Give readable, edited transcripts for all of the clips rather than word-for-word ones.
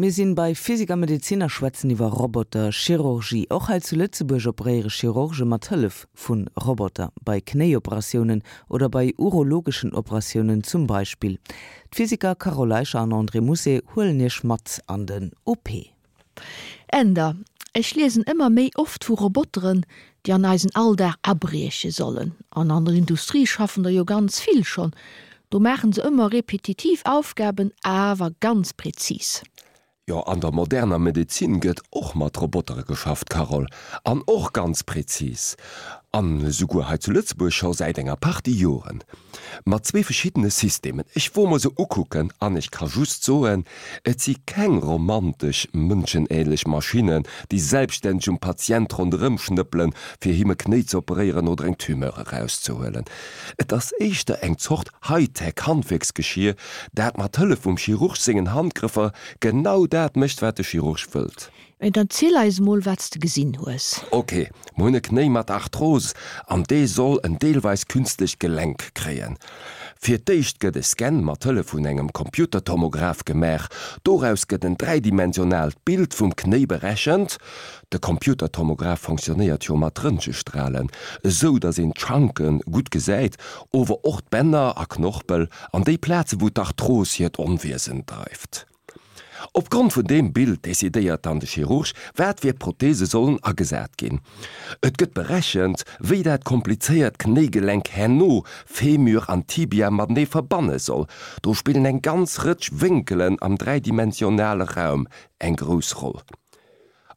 Mir sinn bei Physik a Medezin a schwätzen iwwer Roboter-Chirurgie. Och hei zu Lëtzebuerg operéiere Chirurge mat Hëllef vu Roboter, bei Knéioperatiounen oder bei urologeschen Operatiounen zum Beispill. D'Physiker Carole Eicher an André Mousset huelen Iech mat an den OP. Änder, Ech liesen ëmmer méi oft vu Roboteren, déi an eisen Alldag abrieche sollen. An an der Industrie schaffen der jo ganz vill schonn. Do maachen se ëmmer repetitiv Aufgaben, awer ganz präzis. Jo, an der moderner Medezin gëtt och mat Robotere geschafft, Carole, an och ganz präzis. An esouguer hei zu Lëtzebuerg scho säit enger Partie Joren. Mat zwee verschiddene Systemen. Ech wor mer se ukucken an ech ka just soen, et si keng romantesch, mënschenähnlech Maschinnen, déi selbststänneg um Patient ronderëm schnëppelen, fir him e Knéi ze operéieren oder eng Tumeur erauszehuelen. Et ass éischter eng Zort Hightech-Handwierksgeschier, dat mat Hëllef vum Chirurg sengen Handgrëffer genau dat mécht, wat de Chirurg wëllt. Mä dann ziel eis emol wat s de gesinn hues. Ok, mer hunn e Knéi mat Arthrose an dee soll en deelweis künstlecht Gelenk kréien. Fir d'éischt gëtt e Scan mat Hëllef vun engem Computertomograph gemaach. Doraus gëtt en dräidimensionaalt Bild vum Knéi berechent. De Computertomograph fonctionnéiert jo mat Röntgestralen, esou datt een d'Schanke gutt gesäit, ower och d'Bänner a Knorpel an déi Plaze wou d'Arthros hiert Onwiesen dreift. Opgrond vun deem Bild decidéiert dann de Chirurg, wat fir Prothese sollen agesat ginn. Et gëtt berechent, wéi dat komplizéiert Knéigelenk herno Femur an Tibia matenee verbanne soll. Do spillen eng ganz Rëtsch Wénkelen am dräidimensionale Raum eng grouss Roll.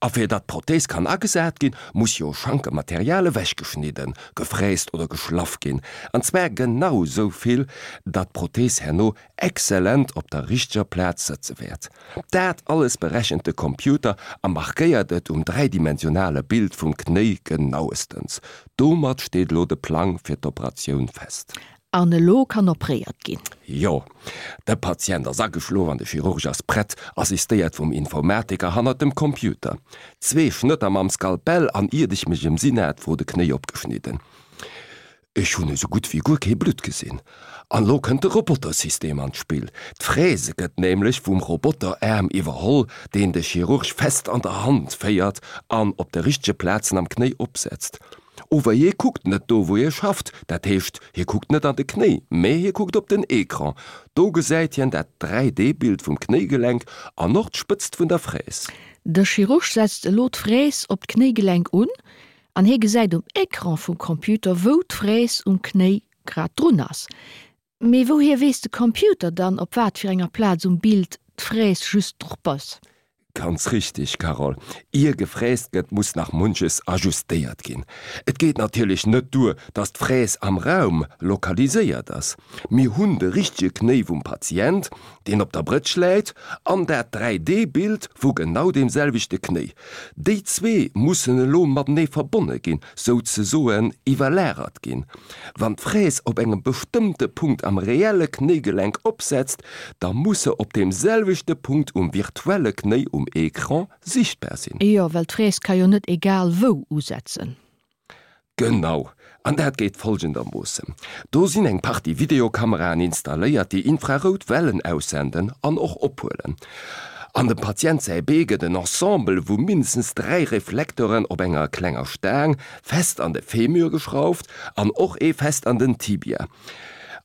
A fir datt d'Prothese kann agesat ginn, muss jo Schankematerial ewechgeschnidden, gefräst oder geschlaff ginn, an zwar genau sou vill, datt d'Prothese herno exzellent op der richteger Plaz sëtze wäert. Dat alles berechent de Computer a markéiert et um dräidimensionale Bild vum Knéi genauestens. Domat steet elo de Plang fir d'Operatioun fest. An elo kann opréiert ginn. Jo, de Patient ass ageschlof an de Chirurg ass prett, assistéiert vum Informatiker hannert dem Computer. Zwee Schnëtter mam Skalpell an iert ech mech emsinn hat, wor de Knéi opgeschnidden. Ech hunn esou gutt wéi guer kee Blutt gesinn. An elo kënnt de Robotersystem an d'Spill. D'Fräse gëtt nämlech vum Roboteraarm iwwerholl, deen de Chirurg fest an der Hand féiert an op de richtege Plazen am Knéi opsetzt. Ower hie kuckt net do wou hie schafft, dat heescht hie kuckt net an de Knéi, mä hie kuckt op den Ecran. Do gesäit hien dat 3D-Bild vum Knéigelenk an och d'Spëtzt vun der Fräs. De Chirurg setzt elo d'Fräs op d'Knéigelenk un an hie gesäit um Ecran vum Computer wou d'Fräs um Knéi grad drun ass. Mee wouhier weess de Computer dann, op wat fir enger Plaz um Bild d'Fräs just drop ass? Ganz richteg, Carole. Ier gefräst gëtt, muss nach munches ajustéiert ginn. Et geet natierlech net duer, dass d'Fräs am Raum lokaliséiert ass. Mir hunn de richtege Knéi vum Patient, deen op der Brëtsch läit, an dat 3D-Bild vu genau deem selwechte Knéi. Déi zwee mussen elo matenee verbonne ginn, souzesoen iwwerlagert ginn. Wann d'Fräs op engem bestëmmte Punkt am reelle Knéigelenk opsetzt, da muss se op deem selwechte Punkt um virtuelle Knéi um Ecran sichtbar sinn. Jo, well d'Fräs ka jo net egal wou usetzen. Genau, an dat geet folgendermoossen, Do sinn eng Partie Videokameraen installéiert, déi infrarout Wellen aussenden an och ophuelen. An dem Patient säi Bee gëtt en Ensemble vu mindestens 3 Reflekteren op enger klenger Staang fest an de Femur geschrauft an och ee fest an den Tibia.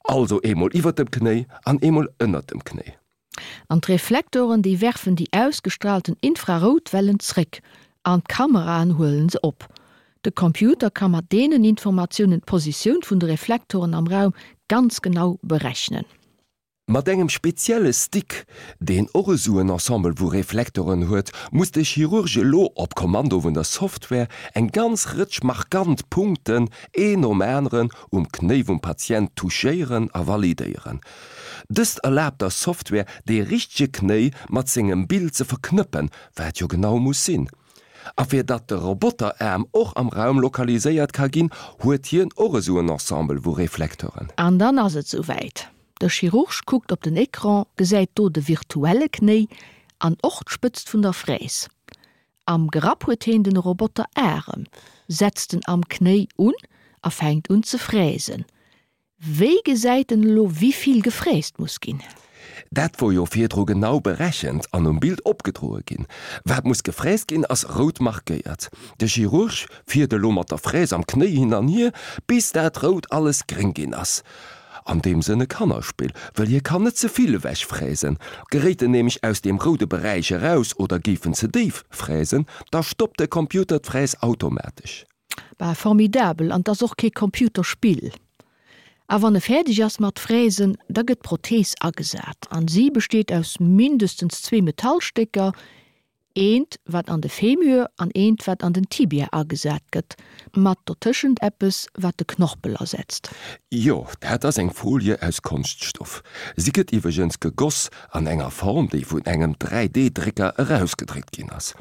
Also eemol iwwert dem Knéi an eemol ënnert dem Knéi. An d'Reflektoren, déi werfen déi ausgestraalten Infraroutwellen zréck an d'Kameraen huelen se op. De Computer ka mat deenen Informatiounen d'Positioun vun de Reflektoren am Raum ganz genau berechnen. Mat engem spezielle Stick, deen och esou en Ensemble vu Reflektoren huet, muss de Chirurg elo op Kommando vun der Software eng ganz Rëtsch markant Punkten een nom aneren um Knéi vum Patient touchéieren a validéieren. Dëst erlaabt der Software, dee richtege Knéi mat sengem Bild ze verknëppen, wat jo genau muss sinn. A fir datt de Roboteraarm och am Raum lokaliséiert ka ginn, huet hien och esou en Ensemble vu Reflekteuren. An dann ass et souwäit, De Chirurg kuckt op den Ecran, gesäit do de virtuelle Knéi an och d'Spëtzt vun der Fräs. Am Grapp huet heen den Roboteraarem, setzt en am Knéi un a fänkt un ze fräsen. Wéi gesäit en elo wivill gefräst muss ginn? Dat wor jo virdru genau berechent an um Bild opgedroe ginn. Wat muss gefräst ginn, ass rout markéiert. De Chirurg fiert elo mat der Fräs am Knéi hin an hier, bis dat Rout alles gréng ginn ass. An deem Sënn e Kannerspill, wëll hie kann net ze vill ewech fräsen. Geréit en nämlech aus deem roude Beräich eraus oder géif en ze déif fräsen, da stoppt de Computer d'Fräs automatesch. Bah, formidabel, an 't ass och kee Computerspill. A wann e fäerdeg ass mat fräsen, da gëtt d'Prothees agesat an si besteet aus mindestens zwee Metallstécker, eent wat an de Femur an eent wat an den Tibia agesat gëtt, mat dotëschent eppes wat de Knorpel ersetzt. Jo, dat ass eng Folie aus Konschtstoff. Si gëtt iwwregens gegoss an enger Form, déi vun engem 3D-Drécker erausgedréckt ginn ass.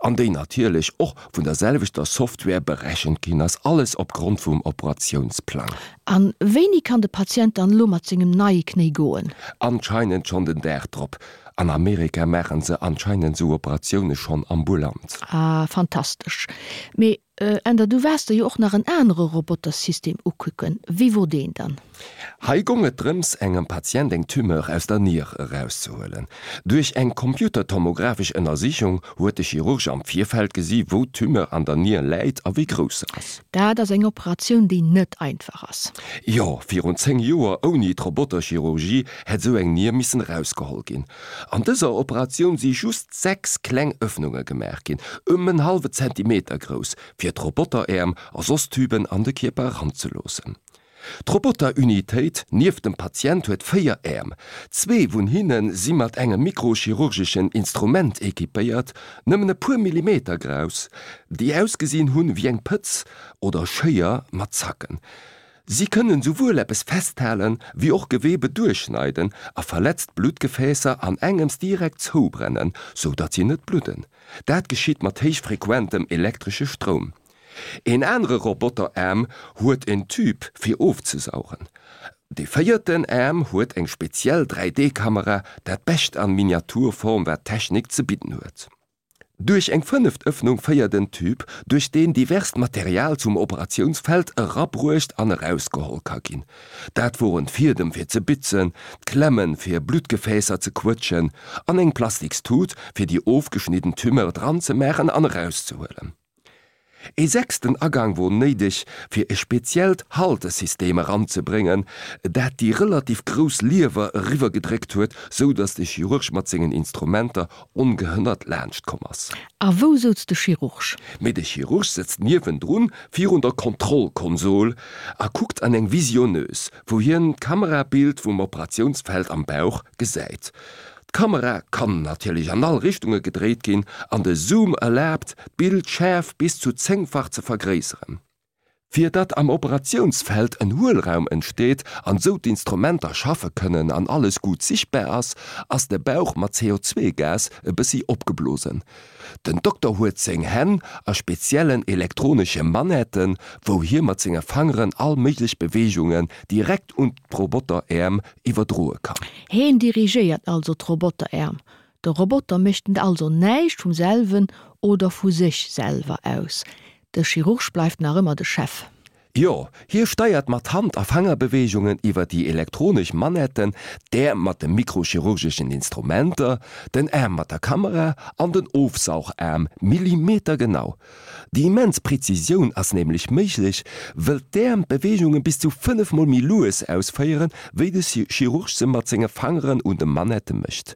An déi natierlech och vun der selwechter Software berechent ginn ass, alles opgrond vum Operatiounsplang. A wéini kann de Patient dann elo mat sengem neie Knéi goen? Anscheinend schonn den Dag drop. An Amerika maachen se anscheinend sou Operatioune schonn ambulant. Ah, fantastesch. Mee Änder, du waars der jo och nach en anere Robotersystem ukucken. Wéi wor deen dann? Hei gong et drëms, engem Patient eng Tumeur aus der Nier erauszehuelen. Duerch eng computertomographesch Ënnersichung huet de Chirurg am Virfeld gesi wou d'Tumeur an der Nier läit a wéi grouss se ass. Dat ass eng Operatioun, déi net einfach ass. Jo, virun 10 Joer, ouni d'Roboterchirurgie, hätt esou eng Nier missen erausgeholl ginn. An dëser Operatioun si just 6 kleng Öffnunge gemaach ginn, ëm en hallwe Zentimeter grouss, fir d'Roboteräerm a soss Tüben an de Kierper eranzeloossen. D'Roboterunitéit nieft dem Patient huet 4 Äerm. Zwee vun hinne si mat engem mikrochirurgeschen Instrument equipéiert, nëmmen e puer Millimeter grouss, déi ausgesinn hunn wéi eng Pëtz oder Schéier mat Zacken. Si kënnen souwuel eppes festhalen, wéi och Gewebe duerchschneiden a verletzt Bluttgefäässer an engems direkt zoubrennen, sou datt si net bludden. Dat geschitt mat héichfrequentem elektresche Stroum. Een anere Roboteraarm huet en Tube fir ofzesaugen. De véierten Aarm huet eng speziell 3D-Kamera, dat bescht an Miniaturform wat d'Technik ze bidden huet. Duerch eng fënneft Ëffnung féiert en Tube, duerch deen diverst Material zum Operatiounsfeld erabruecht an erausgeholl ka ginn. Dat woren d'Fiedem fir ze bitzen, d'Klemmen fir Bluttgefäässer ze quëtschen an eng Plastikstut fir déi ofgeschnidden Tumeur dran ze maachen an erauszehuelen. Ee sechsten Agang wor néideg, fir e speziellt Haltesystem eranzebréngen, dat déi relativ grouss Liewer eriwwergedréckt huet, sou datt de Chirurg mat sengen Instrumenter ongehënnert laanscht komm ass. A wou souz de Chirurg? Mee de Chirurg sëtzt niewendrun virun der Kontrollkonsol a kuckt an eng Visionneuse, wou hien d'Kamerabild vum Operatiounsfeld am Bauch gesäit. D'Kamera kann natierlech an all Richtunge gedréit ginn an de Zoom erlaabt, d'Bildschäerf bis zu zéngfach ze vergréisseren. Fir datt am Operatiounsfeld en Huelraum entsteet an sou d'Instrumenter schaffe kënnen an alles gutt sichtbar ass, ass de Bauch mat CO2-Gas e bëssi opgeblosen. Den Dokter huet seng Hänn a speziellen elektronesche Manetten, wou hie mat senge Fangeren all méiglech Beweegungen direkt un d'Roboteräerm iwwerdroe kann. Heen dirigéiert also d'Roboteräerm. De Roboter mécht also näischt vum selwen oder vu sech selwer aus. De Chirurg bleift nach ëmmer de Chef. Jo, hie steiert mat Hand a Fangerbeweegungen iwwer déi elektronesch Manetten d'Äerm mat de mikrochirurgeschen Instrumenter, den Aarm mat der Kamera an den Ofsaugaarm millimetergenau. Déi immens Präzisioun ass nämlech méiglech, wëll d'Äerm d'Beweegunge bis zu 5 mol méi lues ausféieren, wéi de Chirurg se mat senge Fangeren un de Manette mécht.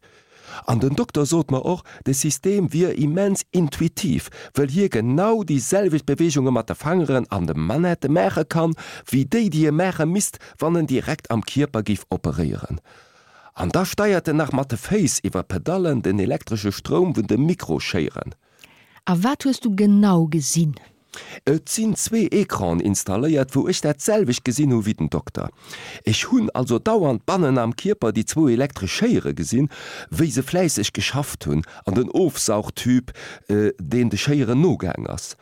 An den Dokter sot mer och, de System wier immens intuitiv, wëll hie genau déi selwecht Beweegunge mat de Fangeren an de Manette maache kann, wéi déi, déi e maache misst, wann en direkt am Kierper géif operéieren. An da steiert en nach mat de Féiss iwwer Pedallen den elektresche Stroum vun de Mikroschéieren. A wat hues du genau gesinn? Et sinn zwee Ecranen installéiert, wou ech dat selwecht gesinn hu wéi den Dokter. Ech hunn also dauernd bannen am Kierper déi zwou elektresch Schéiere gesinn, wéi se fläisseg geschafft hunn, an den Ofsaugtüb, deen de Schéieren nogaang ass.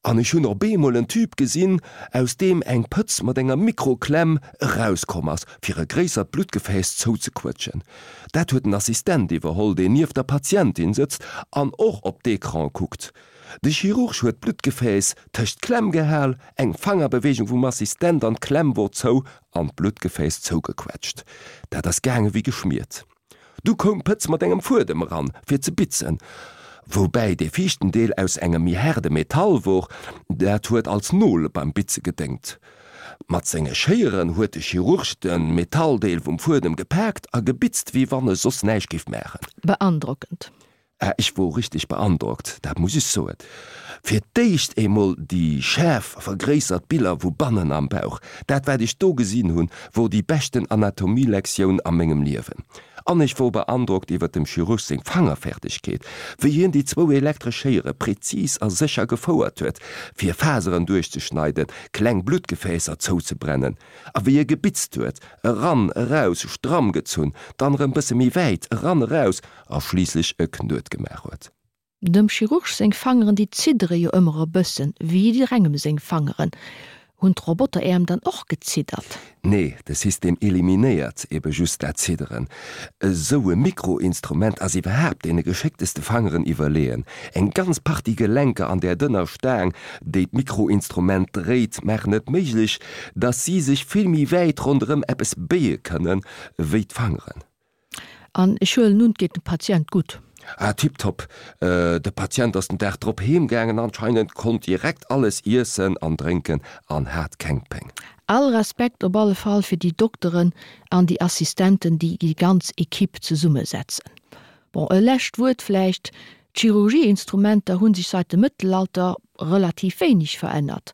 An ech hunn op eemol en Tüb gesinn, aus deem eng Pëtz mat enger Mikroklemm erauskomm ass, fir e gréissert Bluttgefääss zouzequëtschen. Dat huet den Assistent iwwerholl, deen nieft der Patientin sëtzt an och op d'Ecrane kuckt. De Chirurg huet d'Bluttgefääss tëscht d'Klemm gehal, eng Fangerbeweegung vum Assistent an d'Klemm wor zou an d'Bluttgefääss zougequetscht. Dat ass gaange wéi geschmiert. Du koum d'Pëtz mat engem Fuedem eran, fir ze bitzen, woubäi dee viischten Deel aus engem méi haarde Metall wor, dat huet als Nol beim Bitze gedéngt. Mat senge Schéieren huet de Chirurg de Metalldeel vum Fuedem gepaakt a gebitzt, wéi wann e soss näischt géif maachen. Beandrockend. Ah, ech wor richteg beandrockt, dat muss ech soen. Fir d'éischt eemol déi schaarf vergréissert Biller vu bannen am Bauch. Dat wat ech do gesinn hunn, wor déi beschten Anatomielektioun a mengem Liewen. An ech wor beandrockt iwwer dem Chirurg seng Fangerfertegkeet, wéi hien déi zwou elektresch Schéiere prezis a sécher gefouert huet, fir Faseren duerchzeschneiden, kleng Bluttgefäässer zouzebrennen, a wéi e gebitzt huet, eran, eraus, stramm gezunn, dann erëm bësse méi wäit, eran, eraus, a schliisslech e Knuet gemaach huet. Dem Chirurg seng Fangeren, déi ziddere jo ëmmer e bëssen, wéi jidderengem seng Fangeren. Hunn d'Roboteräerm dann och geziddert? Nee, de System eliminéiert ebe just dat Zidderen. Esou e Mikroinstrument ass iwwerhaapt deene geschéckteste Fangeren iwwerleeën. Eng ganz Partie Gelenker an där dënner Staang, déi d'Mikroinstrument dréit, maachen et méiglech, dass si sech vill méi wäit ronderëm eppes béie kënnen, wéi d'Fangeren. An ech huelen un, et geet dem Patient gutt. Ah, tiptop. De Patient ass den Dag drop heem gaangen, anscheinend, konnt direkt alles iessen an drénken an hat keng Péng. All Respekt op alle Fall fir déi Dokteren an déi Assistenten, déi déi ganz Equipe zesummesetzen. Bon, e lescht Wuert vläicht, D'Chirurgieinstrumenter hu sech seit dem Mëttelalter relativ wéineg verännert.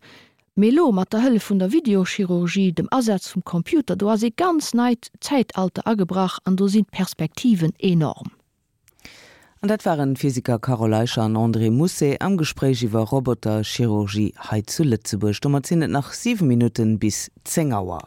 Mee elo, mat der Hëllef vun der Videochirurgie, dem Asaz vum Computer, do ass ee ganz neit Zäitalter agebrach an do sinn d'Perspektiven enorm. An dat waren d'Physiker Carole Eicher an André Mousset am Gespréich iwwer Roboterchirurgie hei zu Lëtzebuerg. Domat sinn et nach 7 Minutten bis 10 Auer.